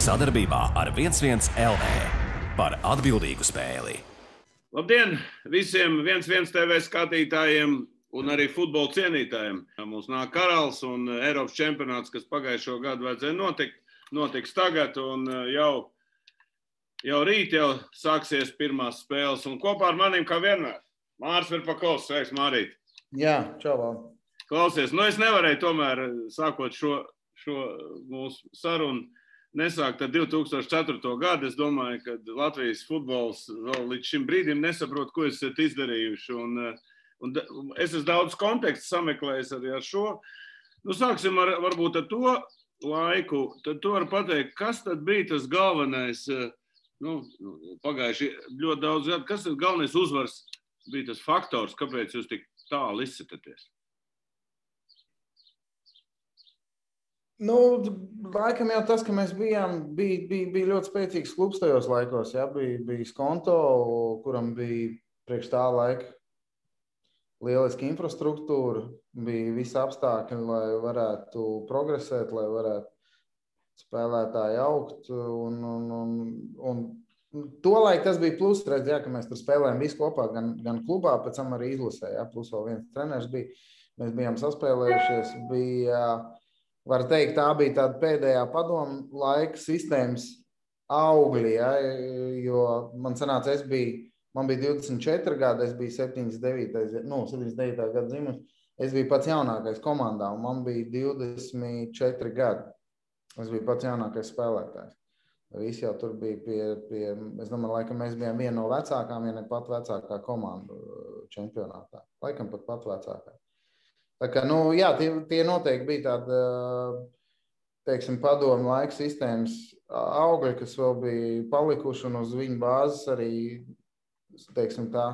Sadarbībā ar 11 LV par atbildīgu spēli. Labdien visiem 11 TV skatītājiem un arī futbola cienītājiem. Mums nāk Karals un Eiropas čempionāts, kas pagājušo gadu vajadzēja notiks tagad, un jau rīt sāksies pirmās spēles. Un kopā ar maniem, kā vienmēr, Māris Verpakovs. Sveiks, Mārīt! Jā, čau, Val. Klausies, es nevarēju tomēr, sākot šo mūsu sarunu, nesākt ar 2004. gadu. Es domāju, ka Latvijas futbols vēl līdz šim brīdim nesaprot, ko esat izdarījuši. Un es esmu daudz kontekstu sameklējis arī ar šo. Sāksim varbūt ar to laiku. Tad tu vari pateikt, kas tad bija tas galvenais, pagājuši ļoti daudz gadu, kas tas galvenais uzvars bija tas faktors, kāpēc jūs tik tālu izsitaties? Laikam jau tas, ka mēs bija ļoti spēcīgs klubs tajos laikos. Jā, bija Skonto, kuram bija priekš tā laika lieliski infrastruktūra, bija visi apstākļi, lai varētu progresēt, lai varētu spēlētāji augt. Un tolaik tas bija plus, redz, jā, ka mēs tur spēlējām visi kopā, gan klubā, pēc tam arī izlasē, jā, plus vēl viens treneris bija. Mēs bijām saspēlējušies, var teikt, tā bija tāda pēdējā padomu laika sistēmas augļi, jā, jo man sanāca, man bija 24 gadi, es biju 79. Gada dzimuši. Es biju pats jaunākais komandā, un man bija 24 gadi. Es biju pats jaunākais spēlētājs. Visi jau tur bija pie es domāju, laikam mēs bijām viena no vecākām, ja ne pat vecākā komanda čempionātā. Laikam pat vecākā. Tā kā, jā, tie noteikti bija tāda, teiksim, padomu laika sistēmas augļi, kas vēl bija palikuši, un uz viņu bāzes arī, teiksim tā,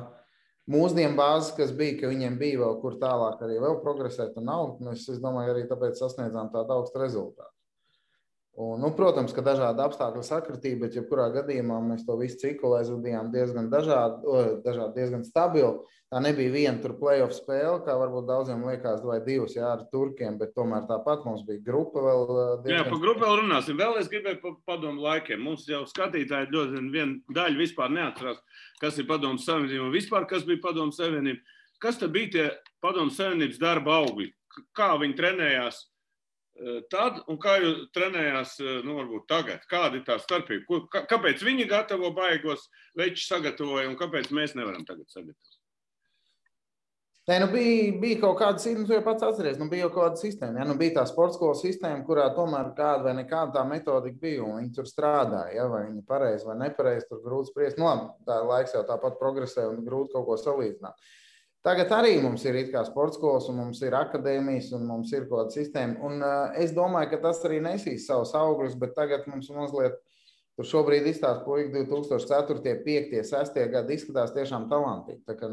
mūsdienu bāzes, kas bija, ka viņiem bija vēl kur tālāk arī vēl progresēt un augt. Mēs, es domāju, arī tāpēc sasniedzām tādu augstu rezultātu. Un, protams, ka dažādi apstākļi sakritīja, bet jebkurā gadījumā mēs to visu ciklu aizvadījām diezgan diezgan stabili. Tā nebija viena tur play-off spēle, kā varbūt daudziem liekas, vai divas, jā, ar turkiem, bet tomēr tāpat mums bija grupa vēl diezgan... Jā, par grupu vēl runāsim. Vēl es gribēju par padomu laikiem. Mums jau skatītāji ļoti viena daļa vispār neatcerās, kas ir padomu savienība un vispār, kas bija padomu savienība. Kas tad bija tie padomu savienības darba augļi? Kā viņi trenējās tad un kā jūs trenējās, varbūt tagad? Kāda ir tā starpība? Kāpēc viņi gatavo baigos, veči sagatavoja, un kāpēc mēs nevaram tagad sagatavot? Bija kaut kāda sistēma, tu jau pats atceries, bija jau kaut kāda sistēma. Ja? Bija tā sportskolas sistēma, kurā tomēr kāda vai nekāda tā metodika bija, un viņi tur strādāja. Ja? Vai viņi pareizi vai nepareizi, tur grūti spriest. Tā laiks jau tāpat progresē un grūti kaut ko salīdzināt. Tagad arī mums ir it kā sportskolas, un mums ir akadēmijas, un mums ir kaut kāda sistēma. Un es domāju, ka tas arī nesīs savus augļus, bet tagad mums mazliet tur šobrīd izstāst puiši 2004, 5, 6 gadi izskatās tiešām talantīgi. Tā kā,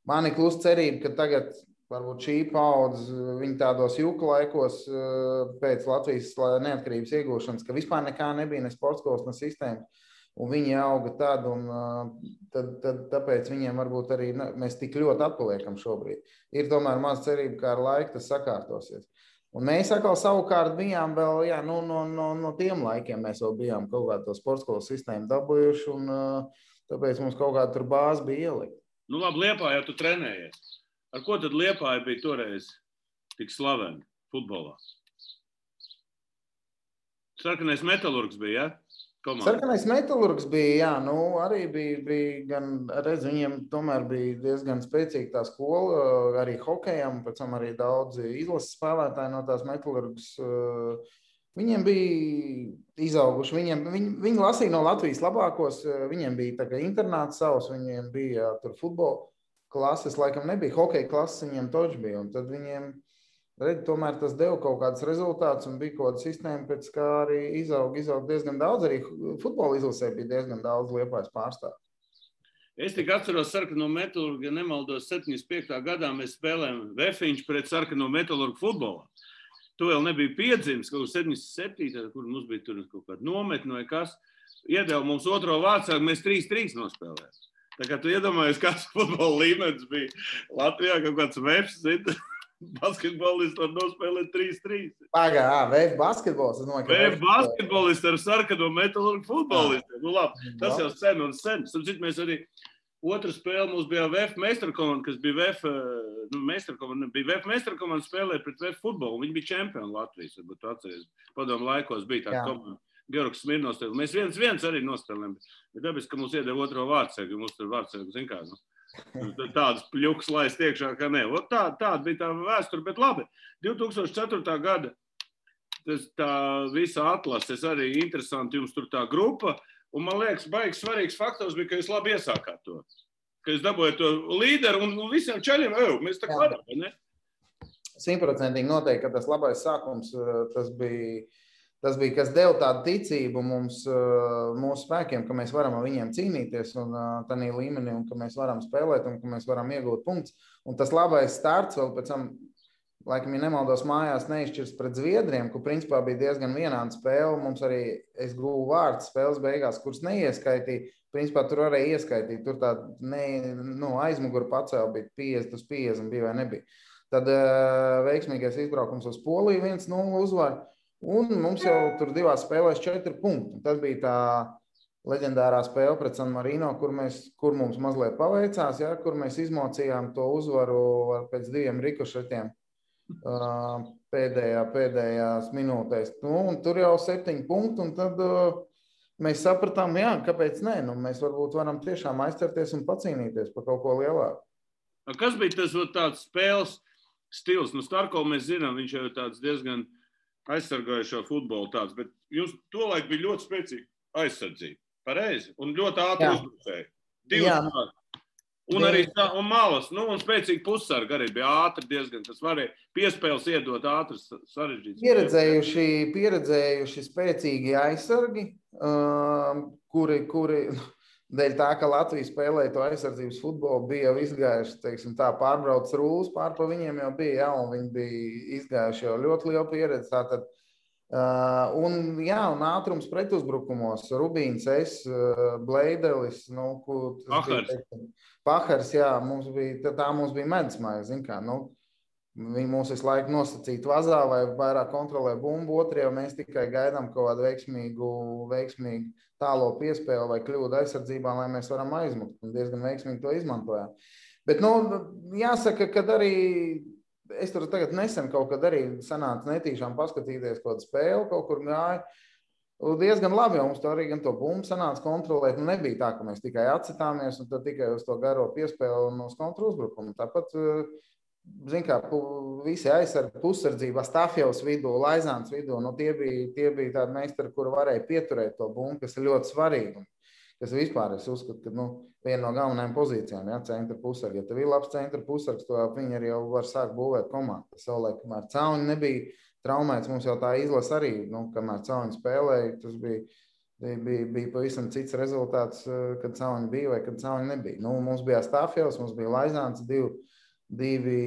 man ir klusa cerība, ka tagad varbūt šī paudze, viņi tādos juku laikos pēc Latvijas neatkarības iegūšanas, ka vispār nekā nebija, ne sportskolas, ne sistēmas. Un viņi auga tad, un tāpēc viņiem varbūt arī mēs tik ļoti atpaliekam šobrīd. Ir tomēr maz cerība, ka ar laiku tas sakārtosies. Un mēs atkal savukārt bijām vēl, jā, no tiem laikiem mēs vēl bijām kaut kādu to sportskolas sistēmu dabūjuši, un tāpēc mums kaut kāda tur bāze bija ielikt. Labi, Liepājā tu trenējies. Ar ko tad Liepāja bija toreiz tik slavena futbolā? Sarkanais Metalurgs bija, ja? Komanda. Sarkanais Metalurgs bija, jā, arī bija gan, redz, viņiem tomēr bija diezgan spēcīga tā skola, arī hokejam, pēc tam arī daudzi izlases spēlētāji no tās Metalurgas. Viņiem bija izauguši, viņi lasīja no Latvijas labākos, viņiem bija tā kā internāts savs, viņiem bija tur futbola klases, laikam nebija, hokeja klases viņiem toč bija, un tad viņiem, tomēr tas deva kaut kāds rezultāts un bija kaut kāda sistēma, pēc kā arī izaug diezgan daudz, arī futbola izlasē bija diezgan daudz Liepājas pārstāvju. Es tik atceros Sarkano Metalurgu, ja nemaldos 75. gadā mēs spēlējām Vefiņš pret Sarkano Metalurgu futbolā. Tu vēl nebija piedzimis, kaut 77. kur mums bija tur kaut kāda nometne vai kas. Iedeva mums otro vārdsargu, mēs 3-3 nospēlējām. Tā kā tu iedomājies, kāds futbola līmenis bija Latvijā, kaut kāds veps, Basketbolists var nospēlēt 3-3. VF basketbols. VF basketbolists ar sarkano metālurgu futbolistiem. Nu labi, tas jau sen un sen. Sapratu, mēs arī otra spēle mums bija VF meistarkomanda, kas bija VF meistarkomanda spēlēja pret VF futbolu. Viņi bija čempioni Latvijas, varbūt tu atceries. Padomu laikos bija tāda komanda. Georgs Smirnovs. Mēs 1-1 arī nospēlējām. Bet dabiski, ka mums iedeva otro vārdsēgu, mums tur vārdsēgu, zin kā, tādas pļuks laist iekšā, ka ne. Tāda bija tā vēsture, bet labi. 2004. gada tā visa atlases arī interesanti, jums tur tā grupa, un man liekas, baigs svarīgs faktors bija, ka jūs labi iesākāt to. Ka jūs dabūjāt to līderu un visiem čaļiem, mēs tā varam, vai ne? 100% noteikti, ka tas labais sākums, tas bija, kas deva tādu ticību mums, mūsu spēkiem, ka mēs varam ar viņiem cīnīties un tādā līmenī, un ka mēs varam spēlēt un ka mēs varam iegūt punktus. Un tas labais starts vēl pēc tam, laikam, ja nemaldos, mājās neizšķirs pret Zviedriem, kur principā bija diezgan vienāda spēle. Mums arī es guvu vārds spēles beigās, kuras neieskaitīja. Principā tur arī ieskaitīt. Tur tā aizmuguru pacēla bija 50-50 bija vai nebija. Tad veiksmīgais izbraukums uz Poliju 1-0 uzvar. Un mums jau tur divās spēlēs 4 punkti. Tas bija tā leģendārā spēle pret San Marino, kur mums mazliet paveicās, ja, kur mēs izmocījām to uzvaru pēc 2 rikošetiem pēdējās minūtēs. Un tur jau 7 punkti, un tad mēs sapratām, kāpēc nē. Mēs varbūt varam tiešām aizcerties un pacīnīties par kaut ko lielāku. Kas bija tas tāds spēles stils? Starko mēs zinām, viņš jau tāds diezgan aizsargājušo futbolu tāds, bet jums tolaik bija ļoti spēcīga aizsardzība, pareizi, un ļoti ātri uzbrucēji. 2 tādi. Un arī malas, un spēcīgi pussargi arī bija ātri diezgan, kas varēja piespēles iedot ātras sarežģītas. Pieredzējuši spēcīgi aizsargi, kuri dēļ tā, ka Latvija spēlēja to aizsardzības futbolu, bija jau izgājuši, teiksim tā, pārbrauc rūlas, pār pa viņiem jau bija, un viņi bija izgājuši jau ļoti lielu pieredzi. Tātad, un ātrums pretuzbrukumos, Rubīns, Bleidelis, Pahars, mums bija medusmaize, zin kā, viņi mūs visu laiku nosacīt vazā vai vairāk kontrolē bumbu, otrajā mēs tikai gaidām kaut kādu veiksmīgu tālo piespēli vai kļūdu aizsardzībā, lai mēs varam aizmukt, un diezgan veiksmīgi to izmantojām. Bet, jāsaka, kad arī, es tur tagad nesen kaut kad arī sanāca netīšām paskatīties kaut kādu spēli, kaut kur gāja, diezgan labi, jo mums to arī gan to bumbu sanāca kontrolēt, nebija tā, ka mēs tikai atsitāmies un tad tikai uz to garo piespēli un uz kontru uzbrukumu. Tāpat, zin kā, visi aizsargi pussardzībā, Stafjevs vidū, Laizāns vidū, tie bija tādi meistari, kuri varēja pieturēt to bumbu, kas ir ļoti svarīgi. Kas vispār, es uzskatu, ka viena no galvenajām pozīcijām, centra pussargi. Ja tev ir labs centra pussargs, to viņi arī jau var sākt būvēt komandu. Savulaik, kamēr Cauni nebija traumēts, mums jau tā izlase arī, kamēr Cauni spēlēja, tas bija pavisam cits rezultāts, kad Cauni bija vai kad Cauni nebija. Mums bija Stafjevs, mums bija Laizāns, divi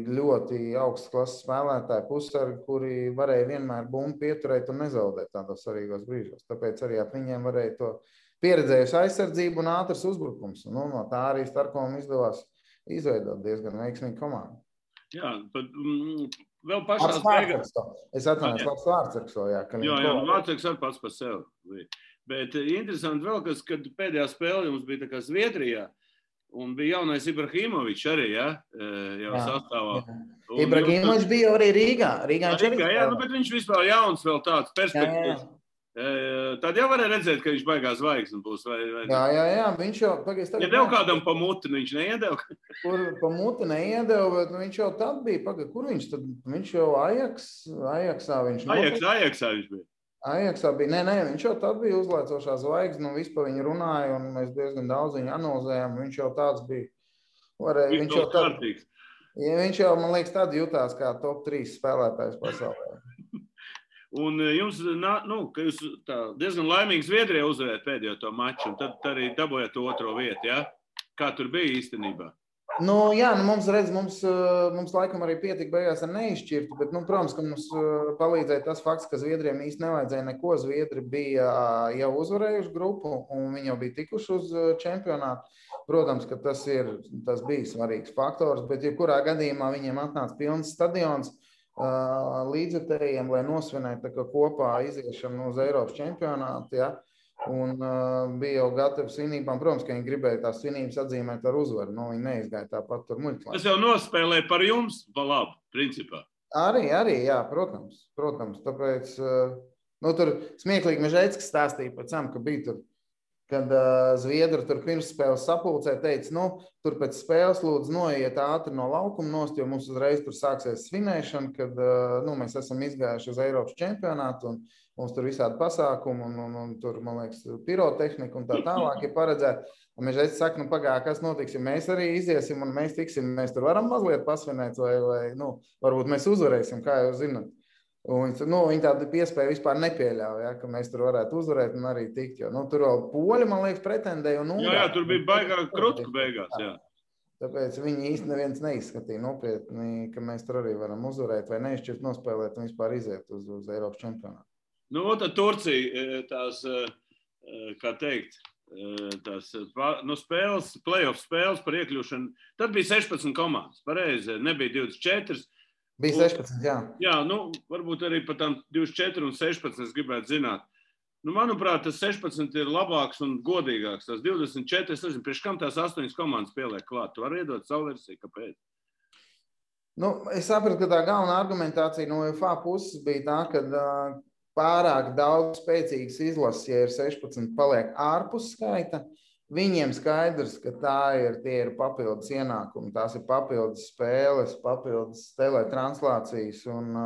ļoti augstas klases spēlētāji pussargi, kuri varēja vienmēr bumbu pieturēt un nezaudēt tādos svarīgos brīžos. Tāpēc arī ap viņiem varēja to pieredzējuši aizsardzību un ātrs uzbrukums. No tā arī Starkovam izdevās izveidot diezgan veiksmīgu komandu. Jā, bet vēl pašās beigās. Es atvainojos, labs Vārtsargs. Jā, Vārtsargs arī pats par sevi. Bet interesanti vēl, kad pēdējā spēle jums bija tā kā Zviedrijā, un bija jaunais Ibrahimovičs arī, jau sastāvā. Ibrahimovičs bija arī Rīgā. Bet viņš vispār jauns vēl tāds perspektīvs. Tad jau varēja redzēt, ka viņš baigās zvaigznes būs. Jā, viņš jau... Ja dev kādam pa muti, viņš neiedeva? Kur pa muti neiedeva, bet viņš jau tad bija. Kur viņš tad? Viņš jau Ajaksā viņš Ajaksā viņš bija. Ajaksā bija. Nē, viņš jau tad bija uzlaicošā zvaigzne, un vispār viņi runāja, un mēs diezgan daudz viņu analizējām. Viņš jau tāds bija. Viņš jau, man liekas, tad jutās kā top 3 spēlētājs pasaulē. Un jums, ka jūs diezgan laimīgi Zviedrijā uzvarējāt pēdējo to maču, un tad arī dabūjāt to otro vietu, ja? Kā tur bija īstenībā? Jā, mums laikam arī pietika beigās ar neizšķirtu, bet, protams, ka mums palīdzēja tas fakts, ka Zviedriem īsti nevajadzēja neko. Zviedri bija jau uzvarējuši grupu, un viņi jau bija tikuši uz čempionātu. Protams, ka tas bija svarīgs faktors, bet jebkurā gadījumā viņiem atnāca pilns stadions līdzekļiem, lai nosvinētu kopā iziešanu uz Eiropas čempionātu, ja? Un bija jau gatavi svinībām. Protams, ka viņi gribēja tās svinības atzīmēt ar uzvaru. Viņi neizgāja tāpat tur muļķlā. Tas jau nospēlēja par jums, pa labu, principā. Arī, jā, protams. Tāpēc, tur smieklīgi Mežēckis stāstīja pēc tam, ka bija tur, kad Zviedri tur pirms spēles sapulcē teica, tur pēc spēles lūdzu noiet ātri no laukuma nost, jo mums uzreiz tur sāksies svinēšana, kad mēs esam izgājuši uz Eiropas čempionātu un mums tur visādi pasākumi un tur, man liekas, pirotehnika un tā tālāk ir paredzēta. Un Mežēckis saka, pagāja, kas notiks, ja mēs arī iziesim un mēs tiksim, mēs tur varam mazliet pasvinēt vai varbūt mēs uzvarēsim, kā jūs zināt. Un viņi tādu piespēju vispār nepieļauj, ja, ka mēs tur varētu uzvarēt un arī tikt, jo tur vēl poļi, man liekas, pretendēja. Jā, tur bija baigā krutku beigās, jā. Tāpēc viņi īsti neviens neizskatīja nopietni, ka mēs tur arī varam uzvarēt vai neizšķirt nospēlēt un vispār iziet uz Eiropas čempionātu. Tad Turcija tās, kā teikt, tās spēles, play-off spēles par iekļūšanu, tad bija 16 komandas, pareizi, nebija 24. Bija 16, jā. Jā, varbūt arī par tām 24 un 16 es gribētu zināt. Manuprāt, tas 16 ir labāks un godīgāks. Tas 24, es nezinu, priekš kam tās 8 komandas pieliek klāt. Tu vari iedot savu versiju, kāpēc? Es sapratu, ka tā galvenā argumentācija no UEFA puses bija tā, ka pārāk daudz spēcīgas izlases, ja ir 16, paliek ārpus skaita. Viņiem skaidrs, ka tie ir papildus ienākumi, tās ir papildus spēles, papildus teletranslācijas, un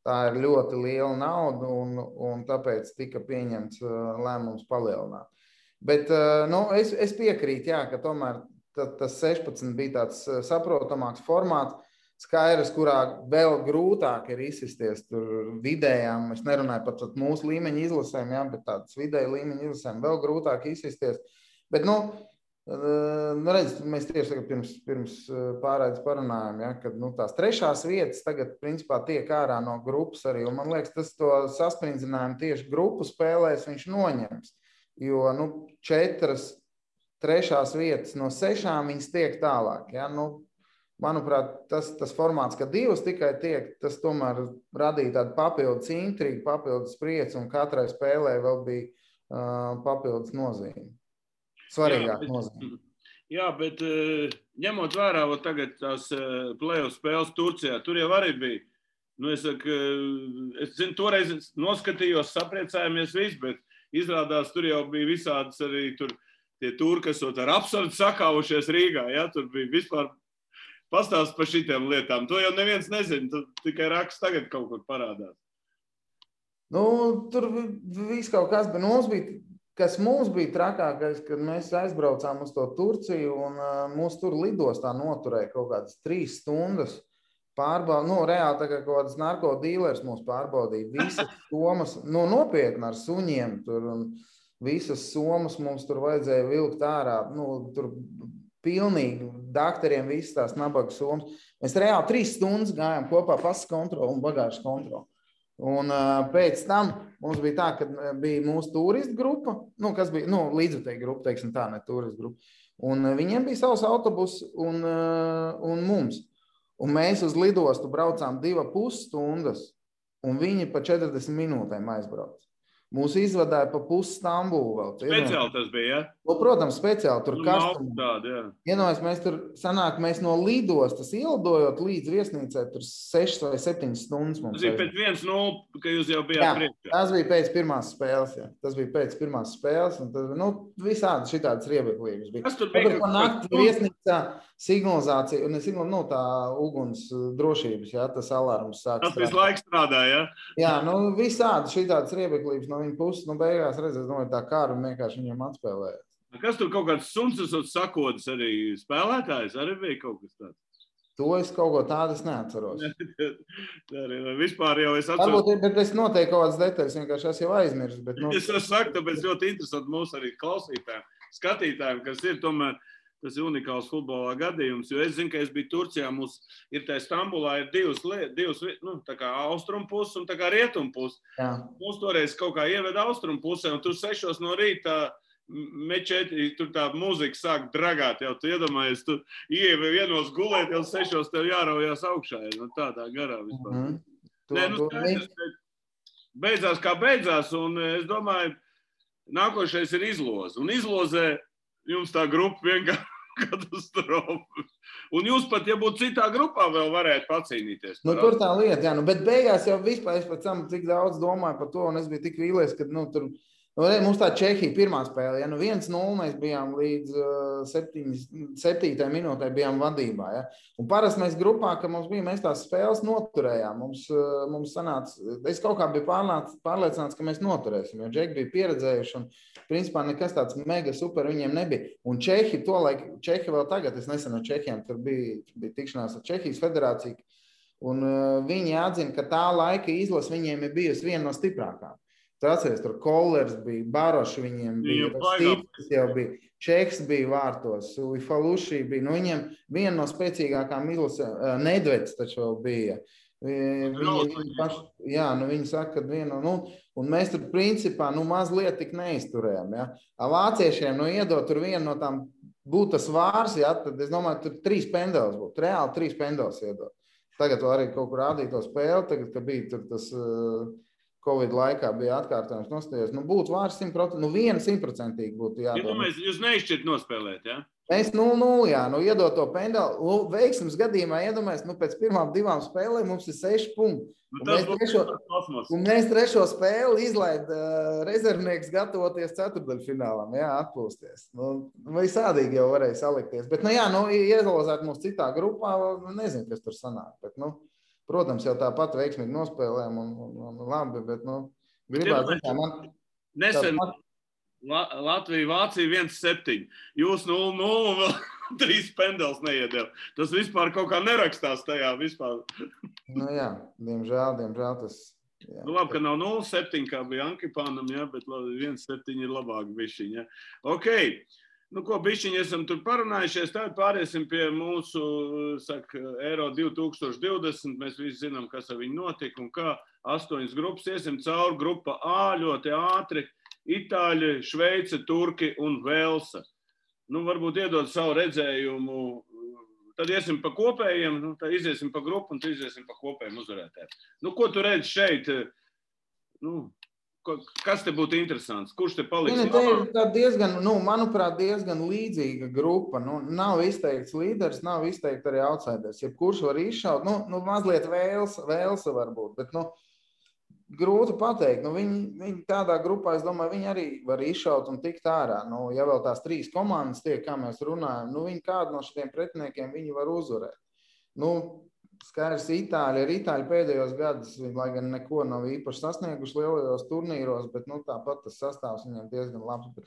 tā ir ļoti liela nauda, un tāpēc tika pieņemts lēmums palielināt. Bet es piekrītu, jā, ka tomēr tas 16 bija tāds saprotamāks formāts, skaidrs, kurā vēl grūtāk ir izsisties tur vidējām, es nerunāju pat mūsu līmeņa izlasēm, jā, bet tādas vidēja līmeņa izlasēm vēl grūtāk izsisties. Bet, redz, mēs tieši pirms pārraides parunājam, ja, kad tās trešās vietas tagad, principā, tiek ārā no grupas arī, un man liekas, tas to sasprindzinājumu tieši grupu spēlēs viņš noņems, jo, 4 trešās vietas no 6 viņas tiek tālāk, ja, manuprāt, tas formāts, ka 2 tikai tiek, tas tomēr radīja tādu papildus intrigu, papildus prieci, un katrai spēlē vēl bija papildus nozīme. Svarīgāk nozīme. Jā, bet ņemot vērā tagad tās play-off spēles Turcijā, tur jau arī bija. Es zinu, toreiz noskatījos, sapriecājāmies viss, bet izrādās tur jau bija visādas arī tur tie turki, kas ar absurdu sakāvušies Rīgā. Ja? Tur bija vispār pastāsts par šitiem lietām. To jau neviens nezina, tu tikai raksts tagad kaut kur parādās. Tur viss kaut kas, bet kas mums bija trakākais, kad mēs aizbraucām uz to Turciju un mūs tur lidostā noturēja kaut kādas 3 stundas pārbaudīt. Reāli tā kā kaut kādas narkodīlers mūs pārbaudīja. Visas somas, nopietni ar suņiem tur un visas somas mums tur vajadzēja vilkt ārā. Tur pilnīgi daktariem visas tās nabaga somas. Mēs reāli 3 stundas gājām kopā pasas kontroli un bagāžas kontroli. Un pēc tam mums bija tā, ka bija mūsu turistu grupa, kas bija, līdzvērtīga grupa, teiksim tā, ne turistu grupa. Un viņiem bija savs autobus un mums. Un mēs uz lidostu braucām 2,5 stundas, un viņi pa 40 minūtēm aizbrauc. Mūs izvadāja pa pusi Stambulu vēl. Speciāli tas bija, ja? Protams, speciāli. Tur kastumā. Iedomājies, mēs no lidostas ielidojot līdz viesnīcai tur 6 vai 7 stundas mums. Tas bija pēc 1-0, ka jūs jau bijāt priekšā. Tas bija pēc pirmās spēles, jā. Tas bija pēc pirmās spēles, un tad, visādi šitādas riebeklības bija. Kas tur bija? Pa nakti viesnīcā signalizācija, un tā uguns drošības, jā, tas alarms sāk strādāt. Tas visu laiku strādāja, ja? Jā, visādi šitādas riebeklības no viņa puses, beigās redzēs, tā kāru vienkārši viņiem atspēlēja. Kas tur kaut kāds suns sakodas arī spēlētājs? Arī bija kaut kas tāds? To es kaut ko tādu neatceros. Vispār jau es atceros. Varbūt, bet es noteikti kaut kādas detaļas vienkārši es jau aizmirsu. Bet, Es saku, tāpēc ļoti interesanti mūsu arī klausītājiem, skatītājiem, kas ir tomēr Tas ir unikāls futbolā gadījums, jo es zinu, ka es biju Turcijā, mums ir tā Stambulā ir divas tā kā austrumu puses un tā kā rietumu puses. Mums toreiz kaut kā ieveda austrumu pusē, un tur 6 no rīta mečeti, tur tā muzika sāk dragāt, jau tu iedomājies, tu ievi vienos gulēt, jau 6 tev jāraujās augšā, ja, tādā garā vispār. Beidzās kā beidzās, un es domāju, nākošais ir izloze. Un izlozē jums tā grupa vienkārši katastrofa. Un jūs pat, ja būtu citā grupā, vēl varētu pacīnīties. Tur tā lieta, jā. Bet beigās jau vispār, es pēc tam cik daudz domāju par to, un es biju tik vīlies, ka, tur... mums tā Čehija pirmā spēle, ja 1-0 mēs bijām līdz 7. minūtē bijām vadībā. Ja? Un parasti mēs grupā, ka mums bija, mēs tās spēles noturējām. Mums sanāca, es kaut kā biju pārliecināts, ka mēs noturēsim, jo Džeki bija pieredzējuši un principā nekas tāds mega super viņiem nebija. Un Čehi vēl tagad, es nesen ar Čehiem, tur bija tikšanās ar Čehijas federāciju, un viņi atzina, ka tā laika izlase viņiem ir bijusi viena no stiprākām. Tu atceries, tur Kollers bija, Baroši viņiem bija, Stīpis jau bija, Čeks bija vārtos, Uifaluši bija, viņiem viena no spēcīgākām izlasēm, Nedveds taču vēl bija. Viņi saka, ka un mēs tur principā, mazliet tik neizturējām, ja. Vāciešiem, iedot tur vienu no tām būtu tas vārs, ja, tad es domāju, tur 3 pendelis būtu, reāli 3 pendelis iedot. Tagad arī kaut kur rādīt to spēli, tagad, ka bija tur tas... Covid laikā bija atkārtojums nostājos. Būtu vārds 100%, 100% būtu jādomā. Jūs neizšķirt nospēlēt, jā? Mēs 0-0, jā, iedot to pendeli. Veiksmes gadījumā iedomājies, pēc pirmām 2 spēlēm mums ir 6 punkti. Un mēs 3. spēli izlaid rezervnieks gatavoties ceturtdaļfinālam, jā, atpūsties. Visādīgi jau varēja salikties. Bet, iezalozēt mums citā grupā, nezinu, kas tur sanāk, bet, protams, jau tāpat veiksmīgi nospēlējām un labi, bet, gribētu zināt, man... Nesen Latvija, Vācija 1-7. Jūs 0-0 un vēl 3 pendels neiedēl. Tas vispār kaut kā nerakstās tajā vispār. Diemžēl tas... Jā. Labi, ka nav 0-7, kā bija Ankipānam, jā, bet 1-7 ir labāk bišķiņ, jā. Ok. Bišķiņi esam tur parunājušies, tad pāriesim pie mūsu, Eiro 2020. Mēs visi zinām, kas ar viņu notika un kā 8 grupas iesim cauri. Grupa A ļoti ātri. Itāļi, Šveice, Turki un Velsa. Varbūt iedod savu redzējumu. Tad iesim pa kopējiem, tad iziesim pa grupu un tad iziesim pa kopējiem uzvarētājiem. Ko tu redzi šeit? Kas te būtu interesants? Kurš te paliks? Te ir diezgan, manuprāt, diezgan līdzīga grupa. Nav izteikts līderis, nav izteikts arī outsiders. Jebkurš var izšaut, mazliet Velsa varbūt, bet, grūti pateikt. Viņi tādā grupā, es domāju, viņi arī var izšaut un tikt ārā. Ja vēl tās 3 komandas tiek, kā mēs runājam, viņi kādu no šiem pretiniekiem viņi var uzvarēt. Skaidrs, Itāļi pēdējos gadus, lai gan neko nav īpaši sasnieguši lielajos turnīros, bet tāpat tas sastāvs viņiem diezgan labs. Bet,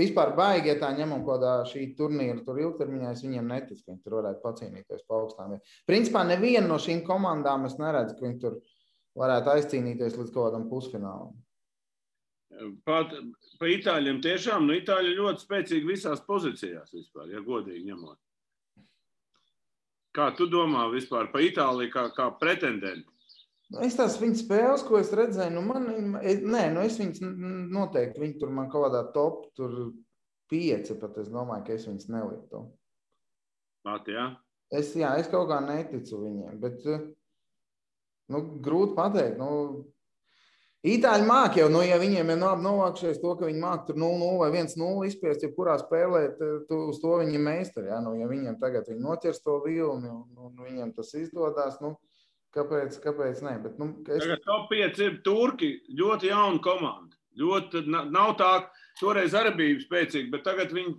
vispār baigi, ja tā ņemam kādā šī turnīra tur ilgtermiņā, es viņiem neticu, ka viņi tur varētu pacīnīties pa augstām. Principā neviena no šīm komandām es neredzu, ka viņi tur varētu aizcīnīties līdz kaut kādam pusfinālam. Pa Itāļiem tiešām, Itāļi ļoti spēcīgi visās pozīcijās vispār, ja godīgi ņemot. Kā tu domā vispār pa Itāliju kā pretendenti? Es tās viņu spēles, ko es redzēju, es viņus noteikti, viņi tur man kaut kādā top, tur 5, pat es domāju, ka es viņus neliktu. Jā? Es kaut kā neticu viņiem, bet, grūti pateikt, Itāļi māk jau, ja viņiem ir novākšies to, ka viņi māk tur 0-0 vai 1-0 izspiest, jebkurā spēlē, uz to viņi meistari, ja viņiem tagad viņi noķers to vilni un viņiem tas izdodās, kāpēc ne? Bet, Tagad top 5 ir Turki, ļoti jauna komanda. Ļoti, nav tā, toreiz arī bija spēcīgi, bet tagad viņi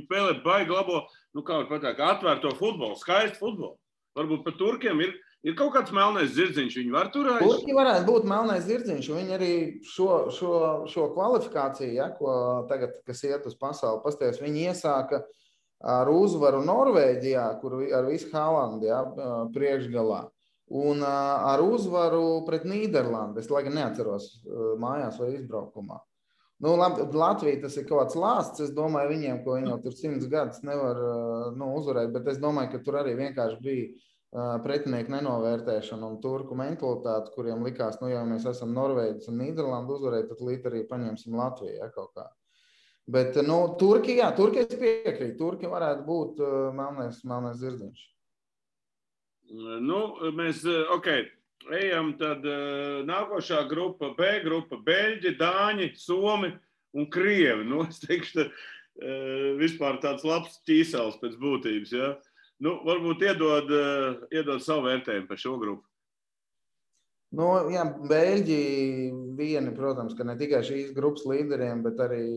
spēlē baigi labo, kā var pateikt, atvērto futbolu, skaistu futbolu. Varbūt par Turkiem ir kaut kāds melnais zirdziņš, viņi var tur aiz? Turki varētu būt melnais zirdziņš, un viņi arī šo kvalifikāciju, ko tagad, kas iet uz pasauli, pasties, viņi iesāka ar uzvaru Norvēģijā, kur ar visu Haalandu, priekšgalā, un ar uzvaru pret Nīderlandi, es lai gan neatceros mājās vai izbraukumā. Nu, Latvija tas ir kaut kāds lāsts. Es domāju, viņiem, ko viņi jau tur 100 gadus nevar uzvarēt, bet es domāju, ka tur arī vienkārši bija pretinieku nenovērtēšana un turku mentalitāte, kuriem likās, nu, ja mēs esam Norvēģis un Nīderlanda uzvarēt, tad līdz arī paņemsim Latviju, ja, kaut kā. Bet, nu, Turki es piekrītu. Turki varētu būt melnais zirdziņš. Nu, mēs, ejam tad nākošā grupa, B grupa, Beļģi, Dāņi, Somi un Krievi. Nu, es teikšu, vispār tāds labs ķīsels pēc būtības, ja? Nu, varbūt iedod savu vērtējumu par šo grupu. Nu, jā, Beļģi vieni, protams, ka ne tikai šīs grupas līderiem, bet arī,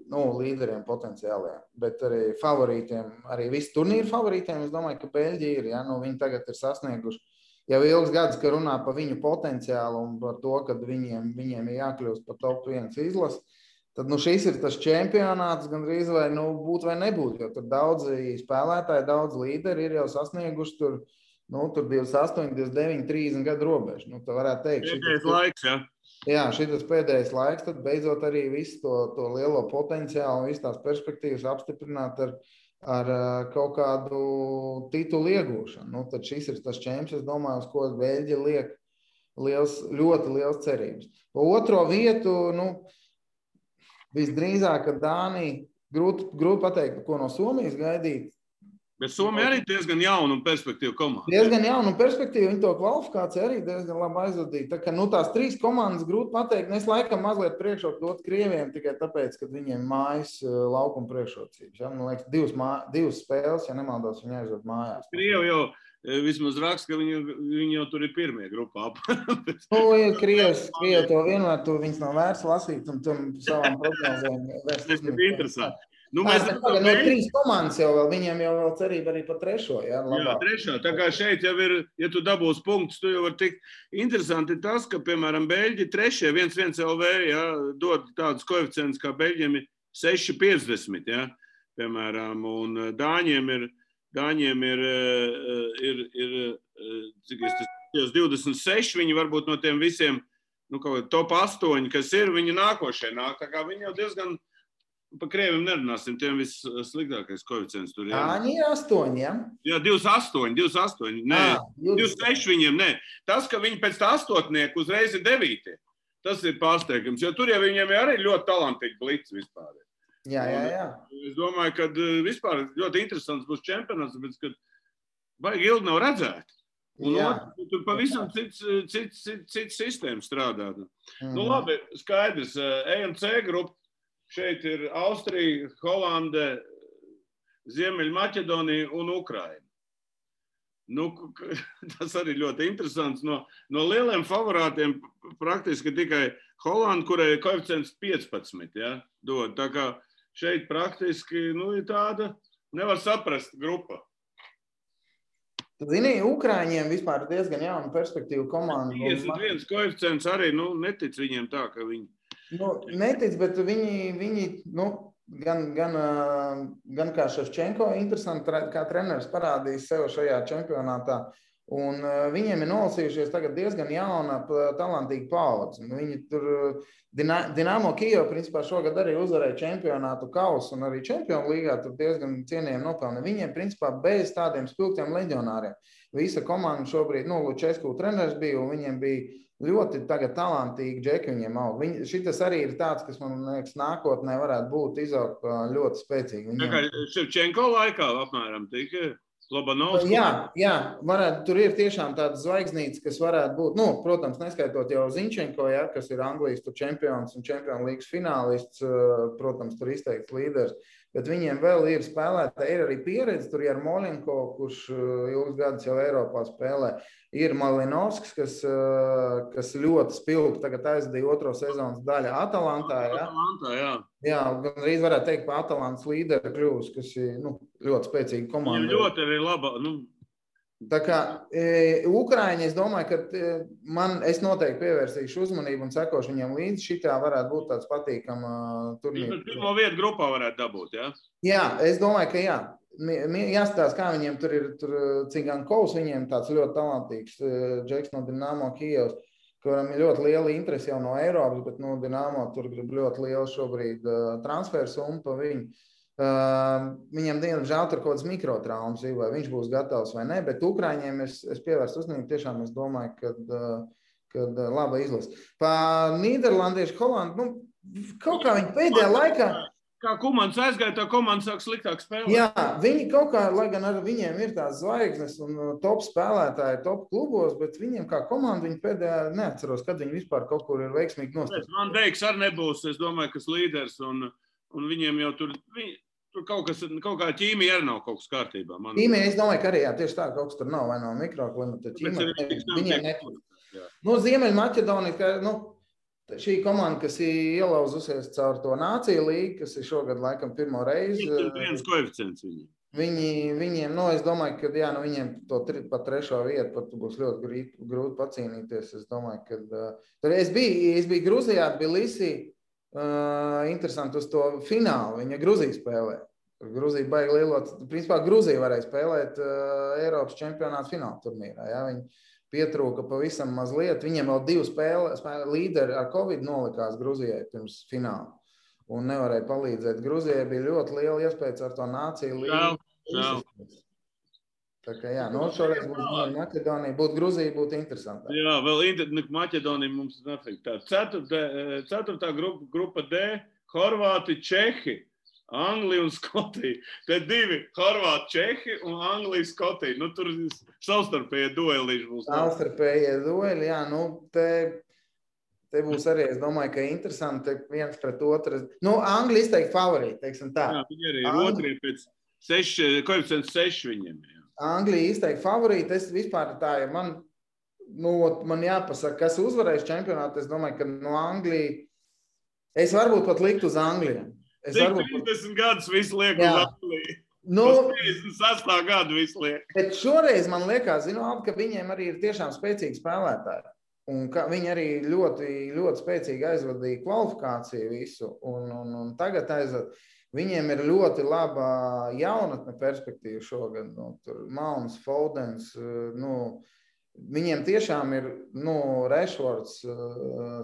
līderiem potenciāliem, bet arī favorītiem, arī visi turnīru favorītiem, es domāju, ka Beļģi ir, ja, nu, viņi tagad ir sasnieguši jau ilgs gads, ka runā par viņu potenciālu un par to, ka viņiem ir jākļūst par top 1 izlasi, tad, nu, šis ir tas čempionāts gandrīz vai, nu, būt vai nebūt, jo tur daudzi spēlētāji, daudz līderi ir jau sasnieguši tur 28, 29, 30 gadu robežu. Nu, tā varētu teikt. Pēdējais laiks, ja? Jā, šitas pēdējais laiks, tad beidzot arī visu to lielo potenciālu un visu tās perspektīvas apstiprināt ar kaut kādu titulu iegūšanu. Nu, tad šis ir tas čemps, es domāju, uz ko Beļģi liek ļoti liels cerības. Pa otro vietu, visdrīzāk, ka Dānija, grūti pateikt, ko no Somijas gaidīt. Bet Somija arī diezgan jauna un perspektīva komanda. Diezgan jauna un perspektīva, viņi to kvalifikāciju arī diezgan labi aizvadīja. Tā kā, tās 3 komandas grūti pateikt, es laikam mazliet priekšroku dot Krieviem tikai tāpēc, ka viņiem mājas laukuma priekšrocības. Ja? Man liekas, 2 spēles, ja nemaldos, viņi aizved mājās. Krievi jau vismaz raksta, ka viņi jau tur ir pirmie grupā. Krievi to vienmēr, viņas nav vērts lasīt un tam savām prognozēm vērst uzmanību. Tas ir interesanti. Nu, mēs tagad 3 komandas jau vēl, viņiem jau vēl cerība arī par 3. Ja, jā, 3. Tā kā šeit jau ir, ja tu dabūs punktus, tu jau var tikt. Interesanti tas, ka, piemēram, Beļģi 3. 1-1 LV, ja, dod tādus koeficientus, kā Beļģiem ir 6,50, ja, piemēram, un Dāņiem ir cik es tas 26, viņi varbūt no tiem visiem, kaut top 8, kas ir, viņi nākošie nāk, tā kā viņi jau diezgan. Pa Krieviem nerunāsim, tiem vissliktākais koeficients tur. Dāņi ir 8, ja? Jā, 28, nē, 26 viņiem, nē. Tas, ka viņi pēc tā 8 uzreiz ir 9, tas ir pārsteigums, jo tur jau viņiem arī ļoti talantīgi blits vispār. Jā. Es domāju, ka vispār ļoti interesants būs čempionāts, bet, kad baigi ilgi nav redzēt. Un tur pavisam cits sistēma strādā. Nu labi, skaidrs, EMC grupa. Šeit ir Austrija, Holande, Ziemeļmaķedonija un Ukraina. Nu, tas arī ļoti interesants. No lieliem favorātiem praktiski tikai Holanda, kurai ir koeficients 15, ja, dod. Tā kā šeit praktiski ir tāda, nevar saprast grupa. Zini, Ukraiņiem vispār diezgan jauna perspektīva komanda. 51 koeficients arī, netic viņiem tā, ka viņi. Netic, bet viņi gan kā Ševčenko interesanti, kā treneris parādījis sev šajā čempionātā, un viņiem ir nolasījušies tagad diezgan jauna, talantīga paudze. Viņi tur Dinamo Kijev, principā, šogad arī uzvarēja čempionātu kausu un arī čempionu līgā tur diezgan cienījami nopelna. Viņiem, principā, bez tādiem spilgtiem leģionāriem. Visa komanda šobrīd, Lučesku treneris bija, un viņiem bija ļoti tagad talantīgi džeki viņiem aug. Šitas arī ir tāds, kas, man liekas, nākotnē varētu būt izaugt ļoti spēcīgi. Tā kā Ševčenko laikā apmēram tika Lobanovs. Jā, varētu, tur ir tiešām tādas zvaigznītes, kas varētu būt, protams, neskaitot jau Ziņčenko, ja, kas ir Anglijas čempions un čempionu līgas finālists, protams, tur izteikts līderis. Bet viņiem vēl ir spēlētāji, ir arī pieredze, tur ir Molenko, kurš ilgus gadus jau Eiropā spēlē. Ir Malinovskis, kas ļoti spilgti tagad aizdīja 2. sezonas daļa Atalantā. Ja? Atalantā, jā. Jā, gan arī varētu teikt par Atalantas līderi kļūst, kas ir ļoti spēcīga komanda. Viņam ļoti arī laba. Tā kā Ukraiņi, es domāju, ka es noteikti pievērsīšu uzmanību un sekošu viņam līdzi. Šitā varētu būt tāds patīkama turnīra. Viņš pirmo vietu grupā varētu dabūt, jā? Jā, es domāju, ka jā. Jāstāsta, kā viņiem tur ir Cigankovs, viņiem tāds ļoti talantīgs džeks no Dinamo Kijevs. kuram ir ļoti liela interese jau no Eiropas, bet Dinamo tur grib ļoti lielu šobrīd transferu summu pa viņu. Viņam diemžēl tur kaut kāds mikrotraumas, vai viņš būs gatavs vai ne, bet Ukraiņiem es pievērstu uzmanību, tiešām es domāju, kad laba izlase. Pa Nīderlandiešu Holandu, kaut kā viņi pēdējā laikā... Kā komandas aizgāja, tā komanda sāk sliktāk spēlēt. Jā, viņi kaut kā, lai gan ar viņiem ir tās zvaigznes un top spēlētāji, top klubos, bet viņiem kā komanda, viņi pēdējā neatceros, kad viņi vispār kaut kur ir veiksmīgi nostājušies. Man Deiks arī nebūs, es domāju, kas līderis, un viņiem jau tur kaut kā ķīmija arī nav kaut kas kārtībā. Ķīmija, es domāju, ka arī, jā, tieši tā, kaut kas tur nav, vai nav mikroklimata ķīmija. Viņiem nekur. Ziemeļmaķedonija, šī komanda, kas ir ielauzusies caur to Nāciju līgu, kas ir šogad laikam pirmo reizi. Viens koeficients viņiem. Viņiem, es domāju, ka viņiem to pat trešo vietu pat būs ļoti grūti pacīnīties. Es domāju, ka es biju Gruzijā, Tbilisī, interesanti uz to finālu. Viņa Gruzija spēlē. Gruzija baigi lielot. Principā Gruzija varēja spēlēt Eiropas čempionāta fināla turnīrā. Ja? Viņi pietrūka pavisam mazliet. Viņiem vēl 2 spēles līderi ar Covid nolikās Gruzijai pirms fināla. Un nevarēja palīdzēt. Gruzijai bija ļoti liela iespēja ar to Nāciju līgu. Tā kā šoreiz būtu Maķedonija, būtu Gruzija, būtu interesantāk. Jā, vēl Maķedonija mums nafik. Tā 4. grupa D, Horvāti, Čehi. Anglija un Skotija. Te 2 Horvāti, Čehi un Anglija, Skotija. Tur savstarpējie duelīši būs. Savstarpējie dueli, jā. Te būs arī, es domāju, ka interesanti viens pret otru. Anglija izteikti favorīti, teiksim tā. Jā, viņi arī ir otrie pēc koeficients 6 viņiem. Jā. Anglija izteikti favorīti. Es vispār tā, ja man jāpasaka, kas uzvarēs čempionātu, es domāju, ka Anglija, es varbūt pat liktu uz Angliju. 30 gadus visu liek uz Angliju. 36. gadu visu liek. Bet šoreiz man liekas, ka viņiem arī ir tiešām spēcīgi spēlētāji. Un viņi arī ļoti, ļoti spēcīgi aizvadīja kvalifikāciju visu. Un tagad viņiem ir ļoti laba jaunatne perspektīva šogad. Tur Mauns, Fodens, viņiem tiešām ir Rešfords,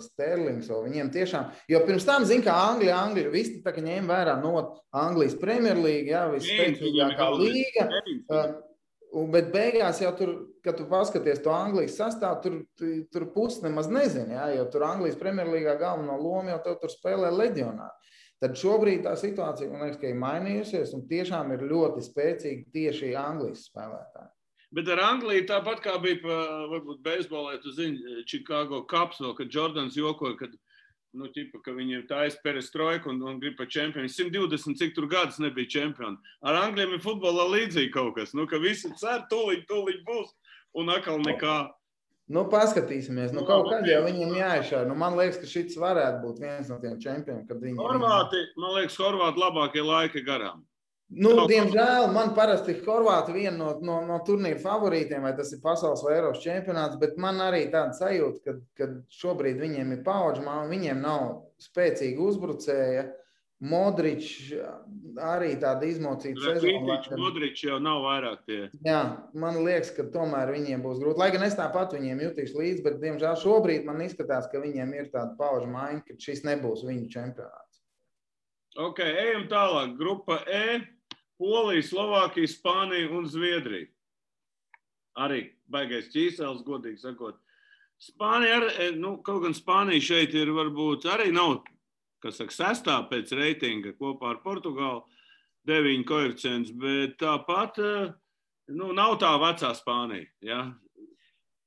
Sterlings, viņiem tiešām, jo pirms tam kā Anglija, visi tā kā ņēma vērā Anglijas Premjerlīga, jā, visspēcīgākā līga, bet beigās jau tur, kad tu paskaties to Anglijas sastāvu, tur pusi nemaz nezini, jā, jo tur Anglijas Premjerlīgā galveno lomu jau tur spēlē leģionāri. Tad šobrīd tā situācija, man liekas, ka ir mainījusies un tiešām ir ļoti spēcīgi tieši Anglijas spēlētāji. Bet ar Angliju tāpat kā bija varbūt beisbolē, tu zini, Chicago Cubs vēl, kad Jordans jokoja, ka viņiem taisa perestroika un grib pa čempioni. 120 cik tur gadus nebija čempioni. Ar Anglijiem ir futbolā līdzīgi kaut kas, ka visi cer, tūliņ būs un atkal nekā. Paskatīsimies, kaut kad jau viņiem jāiešā. Man liekas, ka šis varētu būt viens no tiem čempioniem, kad viņi... Man liekas, Horvāti labākie laiki garām. Diemžēl man parasti Horvāti viena no turnīra favorītiem, vai tas ir pasaules vai Eiropas čempionāts, bet man arī tāda sajūta, ka šobrīd viņiem ir paudžu, viņiem nav spēcīga uzbrucēja. Modrič arī tāda izmocīta sezona. Modrič jau nav vairāk tie. Jā, man liekas, ka tomēr viņiem būs grūti. Lai gan es tāpat viņiem jutīšu līdzi, bet diemžēl šobrīd man izskatās, ka viņiem ir tāda paudžu maiņa, ka šis nebūs viņu čempionāts. Ok, ejam tālāk. Grupa E. Polija, Slovākija, Spānija un Zviedrija. Arī baigais ķīsels, godīgi sakot. Spānija, kaut gan Spānija šeit ir varbūt arī nav, kas saka, 6. pēc reitinga kopā ar Portugālu, 9 koeficients, bet tāpat, nav tā vecā Spānija, ja?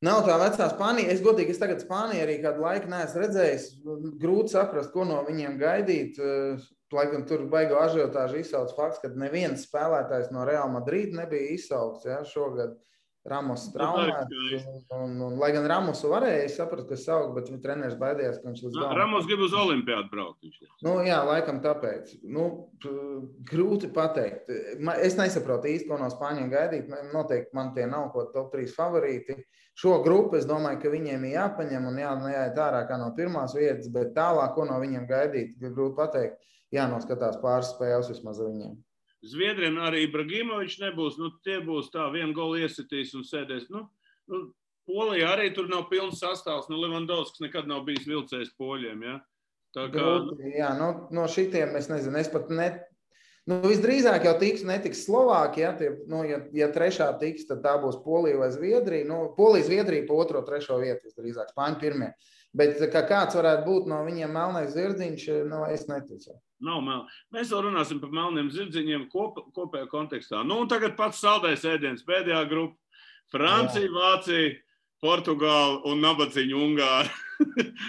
Nav tā vecā Spānija. Es tagad Spāniju arī kādu laiku neesmu redzējis. Grūti saprast, ko no viņiem gaidīt. Lai gan tur baigo ažiotāžu izsauc fakts, ka neviens spēlētājs no Real Madrid nebija izsaukts, ja, šogad Ramos traumēts. Lai gan Ramosu varēja saprast, ka saukt, bet viņa treneris baidījās, ka viņš līdz galam. Ramos grib uz Olimpiādu braukt. Jā, laikam tāpēc. Grūti pateikt. Es nesaprotu īsti, ko no Spāņiem gaidīt. Noteikti man tie nav ko top 3 favorīti. Šo grupu es domāju, ka viņiem ir jāpaņem un jāiet ārā kā no pirmās vietas, bet tālāk, ko no viņiem gaidīt, grūti pateikt. Jānoskatās pāris spēles vismaz viņiem. Zviedriem arī Ibrahimovičs nebūs. Tie būs tā, vienu golu iesitīs un sēdēs. Polija arī tur nav pilns sastāvs. Levandovskis nekad nav bijis vilcējs poļiem, ja? Tā kā... Grūti, jā, no šitiem es nezinu, es pat visdrīzāk jau netiks Slovākija, ja trešā tiks, tad tā būs Polija vai Zviedrija. Polija, Zviedrija pa 2., 3. vietu visdrīzāk, Spāņu pirmie. Bet ka kāds varētu būt no viņiem melnais zirdziņš, es neticu. Nav mel. Mēs vēl runāsim par melniem zirdziņiem kopējā kontekstā. Un tagad pats saldais ēdiens, pēdējā grupa. Francija, Vācija, Portugāla un nabadzīņa Ungāra.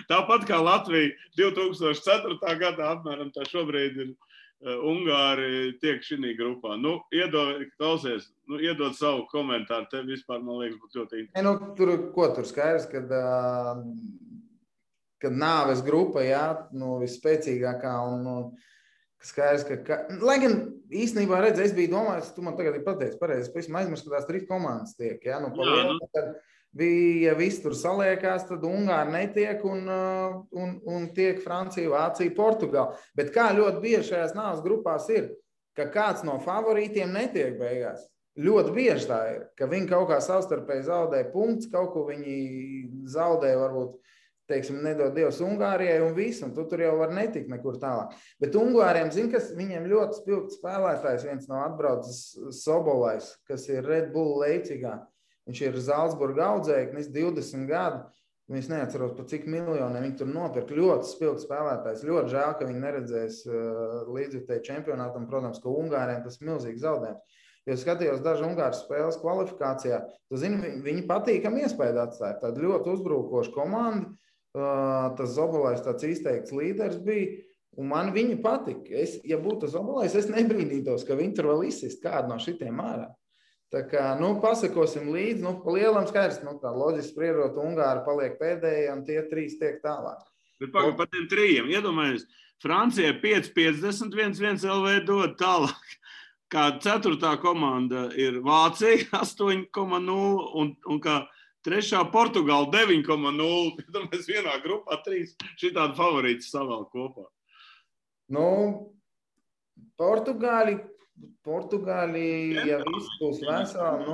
Tāpat kā Latvija 2004. gadā apmēram tā šobrīd ir Ungāri tiek šī grupā. Iedod savu komentāru. Tev vispār, man liekas, būtu ļoti interesanti. Tur skaidrs, kad nāves grupa, jā, visspēcīgākā un skaidrs, lai gan īstenībā redz, es biju domājis, tu man tagad ir pateicis pareizi, es pavisam aizmirsu, ka tās 3 komandas tiek, jā, tad bija viss tur saliekās, tad Ungāri netiek un tiek Francija, Vācija, Portugāla. Bet kā ļoti bieži šajās nāves grupās ir, ka kāds no favorītiem netiek beigās. Ļoti bieži tā ir, ka viņi kaut kā savstarpēji zaudē punkts, kaut ko viņi zaudē varbūt, teiksim, nedod Dievs Ungārijai un visu, un tu tur jau var netikt nekur tālāk. Bet Ungāriem, kas viņiem ļoti spilgts spēlētājs, viens no atbraucis Sobolais, kas ir Red Bull Leipzigā. Viņš ir Zalcburga audzēknis, 20 gadu. Es neatceros, pa cik miljoniem viņi tur nopirka. Ļoti spilgts spēlētājs. Ļoti žēl, ka viņi neredzēs līdzjutēju čempionātam. Protams, ka Ungāriem tas milzīgi zaudējums. Jo skatījos daži Ungāru spēles kvalifikācijā. Tu zini, viņi patīkami iespēju atstāja. Tāda ļoti uzbrukoša komanda. Tas Zobolais tāds izteikts līderis bija. Un man viņi patika. Ja būtu Zobolais, es nebrīnītos, ka viņi tur vēl izsist kādu no šitiem ārā. Tā kā, pasakosim līdzi, pa lielam skaidrs, tā loģiski spriežot, Ungāri paliek pēdējie un tie 3 tiek tālāk. Bet par tiem 3, iedomājies, Francija 5,50, 1 LV dod tālāk. Kā 4. komanda ir Vācija 8,0 un kā 3. Portugāla 9,0. Iedomājies vienā grupā 3 šitādi favorīti savēl kopā. Portugāli, ja viss būs veseli,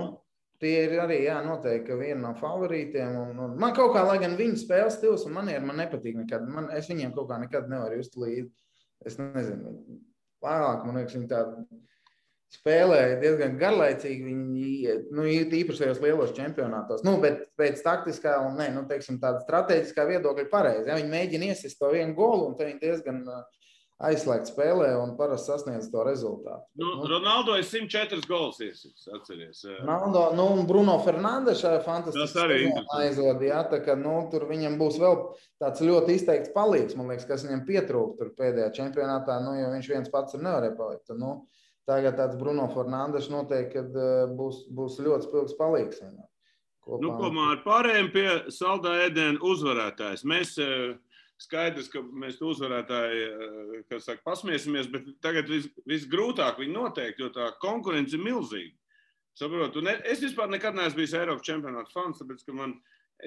tie ir arī, jā, noteikti, ka viena no favorītiem. Un man kaut kā, lai gan viņu spēles stils un manieri man nepatīk nekad. Es viņiem kaut kā nekad nevaru just līdzi. Es nezinu, vairāk, man liekas, viņi tā spēlēja diezgan garlaicīgi. Viņi īpaši tajos lielos čempionātos. Bet pēc taktiskā un, teiksim, tāda strateģiskā viedokļa pareizi. Ja? Viņi mēģina iesist to vienu golu un te viņi diezgan aizslēgt spēlē un parasti sasniedz to rezultātu. Ronaldo ir 104 gols iesits, atceries. Ronaldo, un Bruno Fernandes fantastiski aizvada, jā, tā ka, tur viņam būs vēl tāds ļoti izteikts palīgs, man liekas, kas viņam pietrūk tur pēdējā čempionātā, jo viņš viens pats nevarēja palikt. Tagad tāds Bruno Fernandes noteikti, kad būs ļoti spilgs palīgs. Ar pārējiem pie saldā ēdiena uzvarētājs. Mēs skaidrs, ka mēs uzvarētāji, kas saka, pasmiesimies, bet tagad visgrūtāk viņi noteikti, jo tā konkurence ir milzīga. Saprotu, es vispār nekad neesmu bijis Eiropas čempionāta fans, tāpēc, ka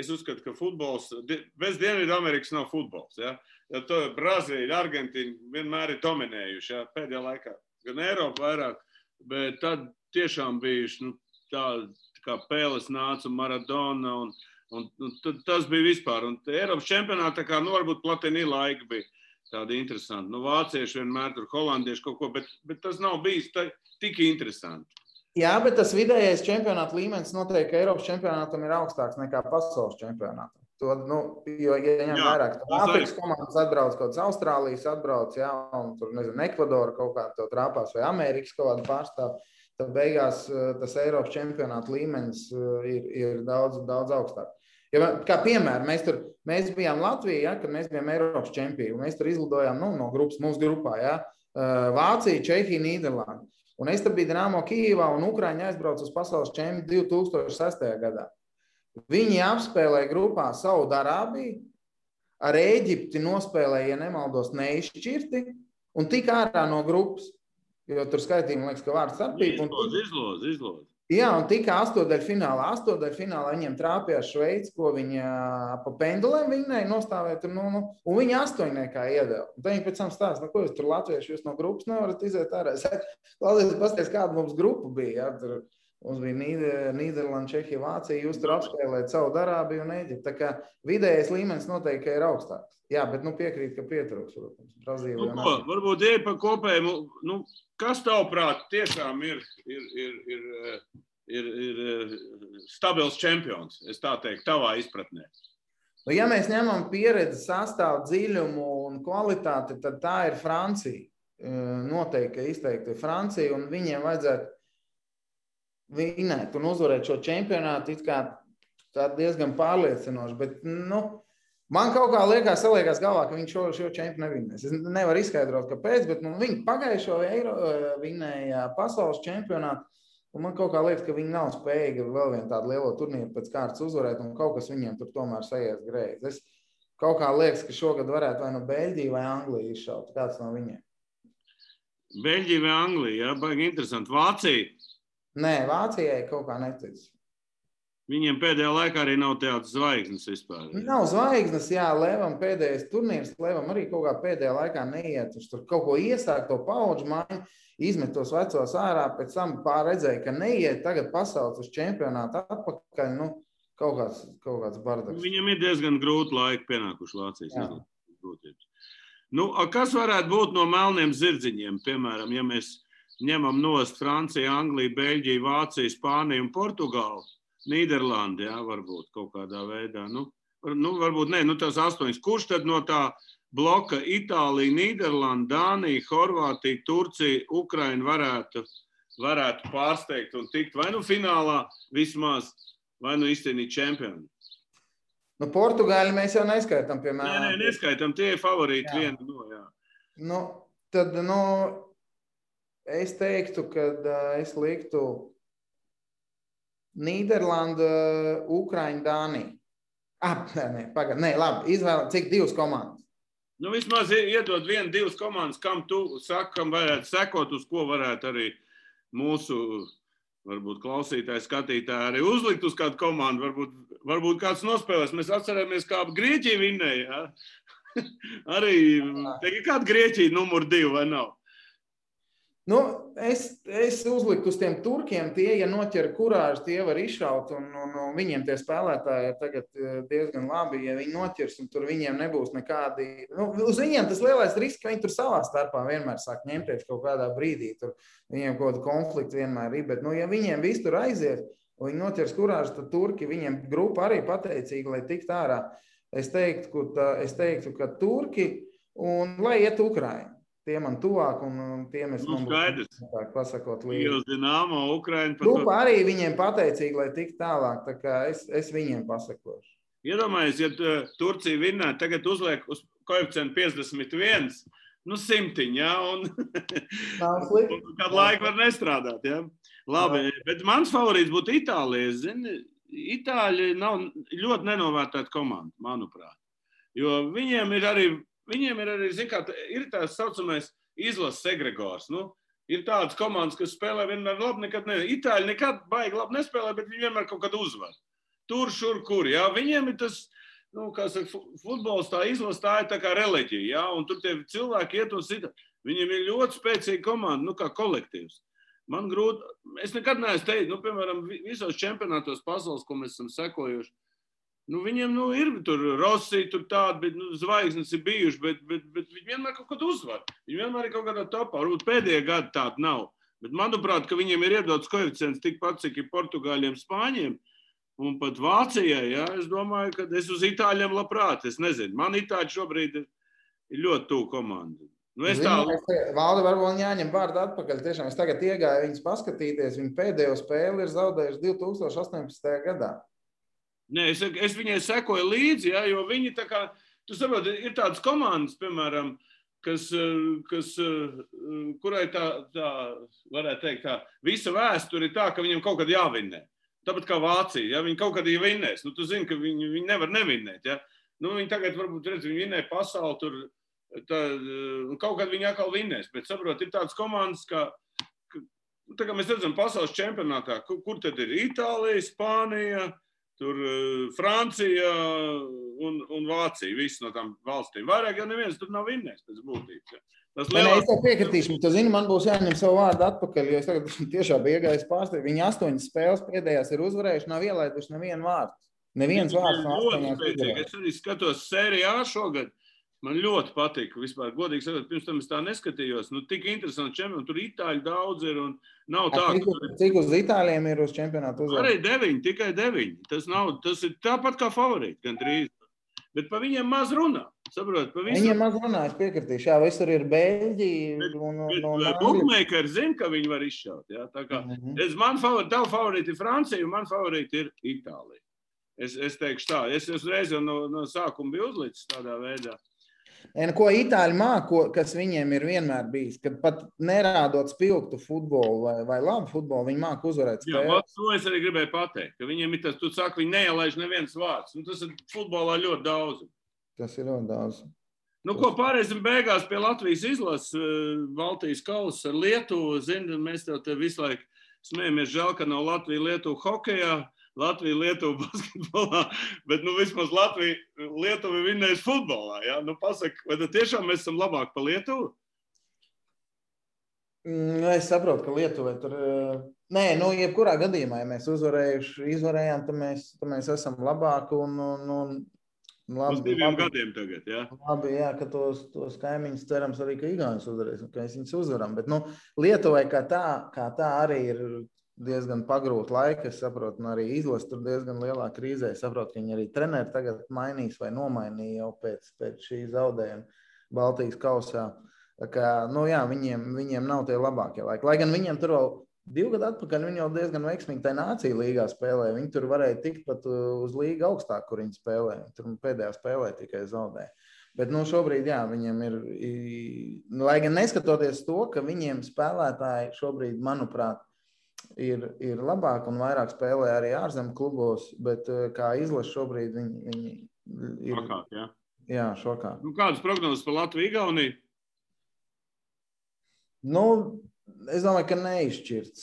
es uzskatu, ka futbols, bez Dienvidamerikas nav futbols, ja? Jo to Brazīļa, Argentīna vienmēr ir dominējuši, ja? Pēdējā laikā, gan Eiropa vairāk, bet tad tiešām bijuši, tā kā Pēles nāca un Maradona un tas bija vispār. Un Eiropas čempionātā, varbūt Platini laika bija tāda interesanta. Vācieši vienmēr tur, holandieši kaut ko, bet tas nav bijis tik interesanti. Jā, bet tas vidējais čempionāta līmenis noteikti, ka Eiropas čempionātam ir augstāks nekā pasaules čempionātam. Jo, ja ņem vairāk, tad Āfrikas komandas atbrauc, kaut kāds Austrālijas atbrauc, jā, un tur, nezinu, Ekvadora kaut kā to trāpās, vai Amerikas kaut kādu pārstāv. Tad beigās tas Eiropas čempionāta līmenis ir daudz augstāk. Ja, kā piemēram, mēs bijām Latvijā, ja, kad mēs bijām Eiropas čempioni. Mēs tur izlidojām no grupas, mūsu grupā, ja, Vācija, Čehija, Nīderlanda. Un es tur biju Dinamo Kijivā un Ukraiņa aizbrauca uz pasaules čempionu 2006. gadā. Viņi apspēlēja grupā Saudarābiju, ar Ēģipti nospēlēja, ja nemaldos, neizšķirti un tik ārā no grupas. Jo tur skaitījumi, liekas, ka vārds starpība. Izloz. Jā, un tika astodaļfinālā. Astodaļfinālā viņiem trāpījās Šveici, ko viņa pa pendulēm viņai nostāvēja tur, un viņi 8 iedeva. Un tad viņi pēc tam stāsta, ko jūs tur latvieši, jūs no grupas nevarat iziet ārā. Klausies, pasties, kāda mums grupa bija, jā, tur Mums bija Nīderlanda, Čehija, Vācija. Jūs tur apspēlējat Saudarābiju un Eģipti. Tā kā vidējais līmenis noteikti ir augstāks. Jā, bet piekrīt, ka pietrūks, protams. Brazīlija un Argentīna. Varbūt ieja pa kopējumu. Kas tavuprāt tiešām ir stabils čempions, es tā teiktu, tavā izpratnē? Ja mēs ņemam pieredzi, sastāvu, dziļumu un kvalitāti, tad tā ir Francija. Noteikti izteikti Francija, un viņiem vajadzētu vinēt un uzvarēt šo čempionātu it kā tā diezgan pārliecinoši, bet, man kaut kā saliekās galvā, ka viņi šo čempionu nevinēs. Es nevaru izskaidrot, kāpēc, bet viņi pagājušo vinēja pasaules čempionātu, un man kaut kā liekas, ka viņi nav spējīgi vēl vienu tādu lielo turnīru pēc kārtas uzvarēt, un kaut kas viņiem tur tomēr sajies greizi. Es kaut kā liekas, ka šogad varētu vai no Beļģija vai Anglija izšaut. Kāds no viņiem? Beļģija vai Anglija, jā, baigi interesanti. Vācija? Nē, Vācijai kaut kā netic. Viņiem pēdējā laikā arī nav tādas zvaigznes vispār. Nav zvaigznes, jā, Levam pēdējais turnīrs, Levam arī kaut kā pēdējā laikā neiet. Viņš tur kaut ko iesāk, to paudžu maiņu, izmet tos vecos ārā, pēc tam pārredzēja, ka neiet, tagad pasauc uz čempionātu atpakaļ, kaut kāds bardaks. Viņam ir diezgan grūti laiki pienākuši Vācijas grūtības. Kas varētu būt no melniem zirdziņiem, piemēram, ja mēs ņemam nost Franciju, Angliju, Beļģiju, Vāciju, Spāniju un Portugālu, Nīderlandi, jā, varbūt kaut kādā veidā. Varbūt ne, tās 8. Kurš tad no tā bloka Itālija, Nīderlanda, Dānija, Horvātija, Turcija, Ukraina varētu pārsteigt un tikt vai finālā vismaz, vai izcīnīt čempionu? Portugāļi mēs jau neskaitām, piemēram. Nē, neskaitām, tie ir favorīti viena no, jā. Tad, es teiktu, ka es liktu Nīderlanda, Ukraina, Dānija. Nē, labi, izvēl, cik 2 komandas? Vismaz iedod 1-2 komandas, kam tu saki, kam varētu sekot, uz ko varētu arī mūsu, varbūt klausītāji, skatītāji arī uzlikt uz kādu komandu, varbūt kāds nospēlēs. Mēs atcerēmies, kā Grieķija vinnēja, jā? Arī, ir kāda Grieķija numur 2 vai nav? Es uzliktu uz tiem turkiem, tie, ja noķer kurāžu, tie var izšaut, un viņiem tie spēlētāji ir tagad diezgan labi, ja viņi noķers, un tur viņiem nebūs nekādi, uz viņiem tas lielais risks, ka viņi tur savā starpā vienmēr sāk ņemties kaut kādā brīdī, tur viņiem kaut kāda konflikta vienmēr ir, bet, ja viņiem viss tur aizies, un viņi noķers kurāžu, tad turki, viņiem grupa arī pateicīga, lai tikt ārā. Es teiktu, ka turki, un lai iet Ukraina. Tie man tuvāk, un tiem es man būtu pasakot līdzi. Dinamo, Ukraina. Grupa arī viņiem pateicīgi, lai tik tālāk, tā kā es viņiem pasakošu. Iedomājies, ja Turcija vinnē, tagad uzliek uz koeficientu 51, 100, jā, un kādu laiku var nestrādāt, jā. Labi, bet mans favorīts būtu Itālija. Itāļi nav ļoti nenovērtēta komanda, manuprāt. Jo viņiem ir arī, zin kā, ir tās saucamais izlases egregors. Ir tādas komandas, kas spēlē vienmēr labi, nekad ne. Itāļi nekad baigi labi nespēlē, bet viņi vienmēr kaut kad uzvar. Tur, šur, kur, jā. Viņiem ir tas, kā saka, futbols tā izlase, tā ir tā kā reliģija, jā. Un tur tie cilvēki iet un sita. Viņiem ir ļoti spēcīga komanda, kā kolektīvs. Man grūti, es nekad neesmu teikt, piemēram, visos čempionātos pasaules, ko mēs esam sekojuši, viņiem ir tur Rossi, tur tādi, bet zvaigznes ir bijuši, bet viņi vienmēr kaut kad uzvar. Viņi vienmēr ir kaut kādā topā. Varbūt pēdējā gada tāda nav. Bet manuprāt, ka viņiem ir iedots koeficients tikpat, cik ir Portugāļiem, Spāņiem un pat Vācijai. Jā, es domāju, ka es uz Itāļiem labprāt. Es nezinu. Man Itāļi šobrīd ir ļoti tuvu komanda. Valdi varbūt jāņem vārdu atpakaļ. Tiešām es tagad iegāju viņus paskatīties. Viņi pēdējo spēli ir zaudējuši 2018. gadā. Nē, es viņai sekoju līdzi, jā, jo viņi tā kā, tu saproti, ir tādas komandas, piemēram, kurai tā, varētu teikt tā, visa vēsture ir tā, ka viņiem kaut kad jāvinnē. Tāpat kā Vācija, ja viņi kaut kad vinnēs, tu zini, ka viņi nevar nevinnēt, ja. Viņi tagad varbūt redz, viņi vinnē pasauli tur, kaut kad viņi atkal vinnēs, bet saprot, ir tādas komandas, tā kā mēs redzam pasaules čempionātā, kur tad ir Itālija, Spānija, tur Francija un Vācija, visas no tām valstīm. Vairāk jau neviens tur nav vinnējis pēc būtības. Ja. Nē, es tev piekritīšu, tu zini, man būs jāņem savu vārdu atpakaļ, jo es tagad tiešām biju iegājis pārstāvju. Viņi 8 spēles pēdējās ir uzvarējuši, nav ielaiduši nevienu vārdu. Neviens vārds no 8 uzvarējuši. Es arī skatos Sērijā šogad. Man ļoti patika vispār. Godīgi sakot, pirms tam es tā neskatījos. Nu, tik interesanti čempioni. Tur itāļi daudz ir un nav tā. Cik uz itāļiem ir uz čempionātu uzvarēt? Arī 9, tikai 9. Tas ir tāpat kā favorīti, gandrīz. Bet pa viņiem maz runā. Saprot, pa viņiem maz runā, es piekritīšu. Jā, visur ir Beļģi un bookmakeri zina, ka viņi var izšaut. Jā? Tā kā tavu favorīti ir Francija un man favorīti ir Itālija. Es teikšu tā. Es uzreiz jau no sākuma biju uzlicis tādā veidā. Ko itāļi māko, kas viņiem ir vienmēr bijis, kad pat nerādot spilgtu futbolu vai labu futbolu, viņi māku uzvarēt spēli. Jā, to es arī gribēju pateikt, ka viņiem ir tas, tu saki, viņi neielaiž neviens vārds. Nu, tas ir futbolā ļoti daudz. Tas ir ļoti daudz. Nu, ko pārēsim beigās pie Latvijas izlases, Baltijas kausa ar Lietuvu. Zini, mēs te visu laiku smējamies, žēl, ka nav Latvija-Lietuva hokejā. Latvija-Lietuva basketbolā, bet vismaz Latvija-Lietuva vinnēs futbolā. Ja? Nu, pasaka, vai tad tiešām mēs esam labāk pa Lietuvu? Es saprotu, ka Lietuvai tur... Nē, jebkurā gadījumā, ja mēs izvarējām, tad mēs esam labāki un uz 2 gadiem tagad, jā? Labi, jā, ka tos kaimiņus cerams arī, ka Igaunis uzvarēs, ka mēs viņus uzvaram. Bet, Lietuvai kā tā arī ir diezgan pagrūti laiki, es saprotu, un arī izlase tur diezgan lielā krīzē. Es saprotu, ka viņi arī treneri tagad mainīs vai nomainīja jau pēc šī zaudējuma Baltijas kausā. Tā kā, jā, viņiem nav tie labākie laiki. Lai gan viņiem tur vēl 2 gadu atpakaļ, viņi jau diezgan veiksmīgi tai nācija līgā spēlē. Viņi tur varēja tikt pat uz līgu augstāk, kur viņi spēlē. Tur pēdējā spēlē tikai zaudēja. Bet šobrīd, jā, viņiem ir, lai gan neskatoties to, ka viņiem spēlētāji šobrīd, manuprāt, ir labāk un vairāk spēlē arī ārzemju klubos, bet kā izlase šobrīd viņi ir... Šokāt, jā? Jā, šokāt. Kādas prognozes par Latviju-Igauniju? Es domāju, ka neizšķirts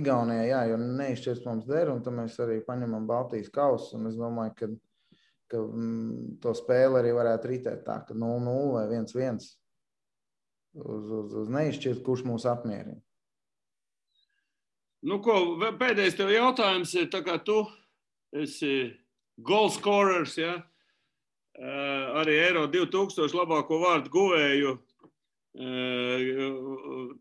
Igaunijā, jā, jo neizšķirts mums der, un tad mēs arī paņemam Baltijas kausu, un es domāju, ka to spēli arī varētu ritēt tā, ka 0-0 vai 1-1. Uz neizšķirt, kurš mūs apmierina. Nu, pēdējais tev jautājums ir, tā kā tu esi goal scorers, ja? Arī Eiro 2000 labāko vārdu guvēju,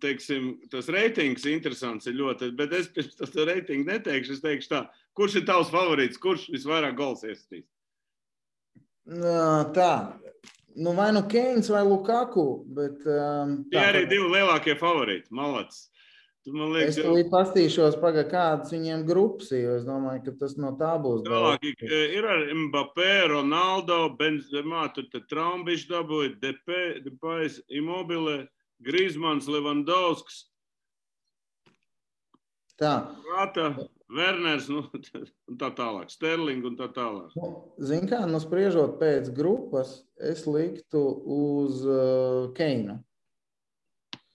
teiksim, tas reitings interesants ir ļoti, bet es pirms tas reitingu neteikšu, es teikšu tā, kurš ir tavs favorīts, kurš visvairāk gols iesatīs? Tā. Vai Keins vai Lukaku, bet... Tie arī 2 lielākie favorīti, malacis. Es tulīt pastīšos, kādas viņiem grupas, jo es domāju, ka tas no tā būs. Tālāk ir ar Mbappé, Ronaldo, Benzemā, tur Traumbišs dabūja, Depais, Immobile, Griezmanns, Levandovskis. Tā. Rata, Werners, un tā tālāk, Sterling un tā tālāk. Zini kā, spriežot pēc grupas, es liktu uz Keinu.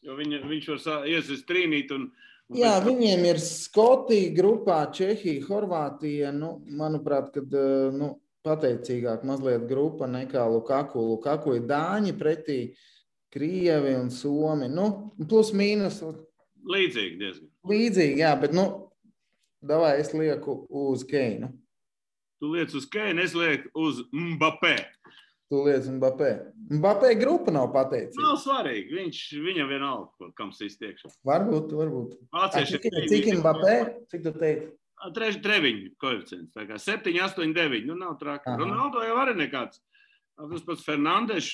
Jo viņš var iesist trīnīt un... Jā, viņiem ir Skotija grupā, Čehija, Horvātija, manuprāt, kad pateicīgāk mazliet grupa nekā Lukaku. Lukaku ir Dāņi pretī Krievi un Somi, plus mīnus. Līdzīgi diezgan. Līdzīgi, jā, bet davai es lieku uz Keinu. Tu liec uz Keinu, es lieku uz Mbappé. Tu liec Mbappé. Mbappé grupa nav pateicīga. Nav svarīgi, viņam vienalga, kam sīs tiekšā. Varbūt. Cik Mbappé? Cik tu teiksi? Treviņu koeficients, tā kā 7, 8, 9, nav traki. Ronaldo jau arī nekāds. Tas pats Fernandes,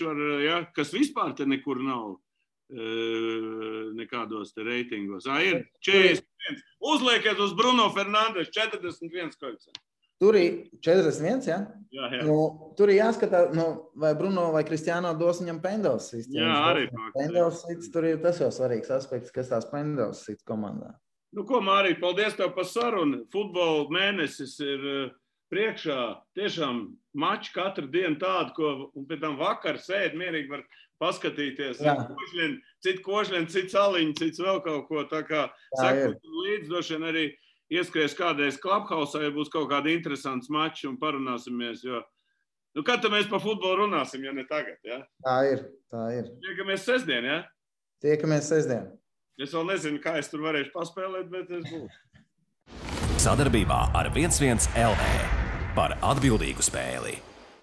kas vispār te nekur nav nekādos te reitingos. Ir 41. Uzliekiet uz Bruno Fernandes 41 koeficients. Tur ir 41, ja? Jā. Tur ir jāskatā, vai Bruno vai Kristiāno dos viņam pendels sits. Jā, arī. Pendels sits, tur ir tas jau svarīgs aspekts, kas tās pendels sits komandā. Ko, Mārī, paldies tev par sarunu. Futbola mēnesis ir priekšā. Tiešām mači katru dienu tādu, un pēc tam vakar sēd mierīgi var paskatīties. Cit košļien, cit saliņi, cits vēl kaut ko. Tā kā sekot līdz došana arī ieskries kādreiz Clubhouse, ja būs kaut kādi interesants mači un parunāsimies, jo Nu, kad tad mēs par futbolu runāsim, ja ne tagad, ja? Tā ir. Tiekamies sestdien, ja? Tiekamies sestdien. Es vēl nezinu, kā es tur varēšu paspēlēt, bet es būšu. Sadarbībā ar 11 LV par atbildīgu spēli.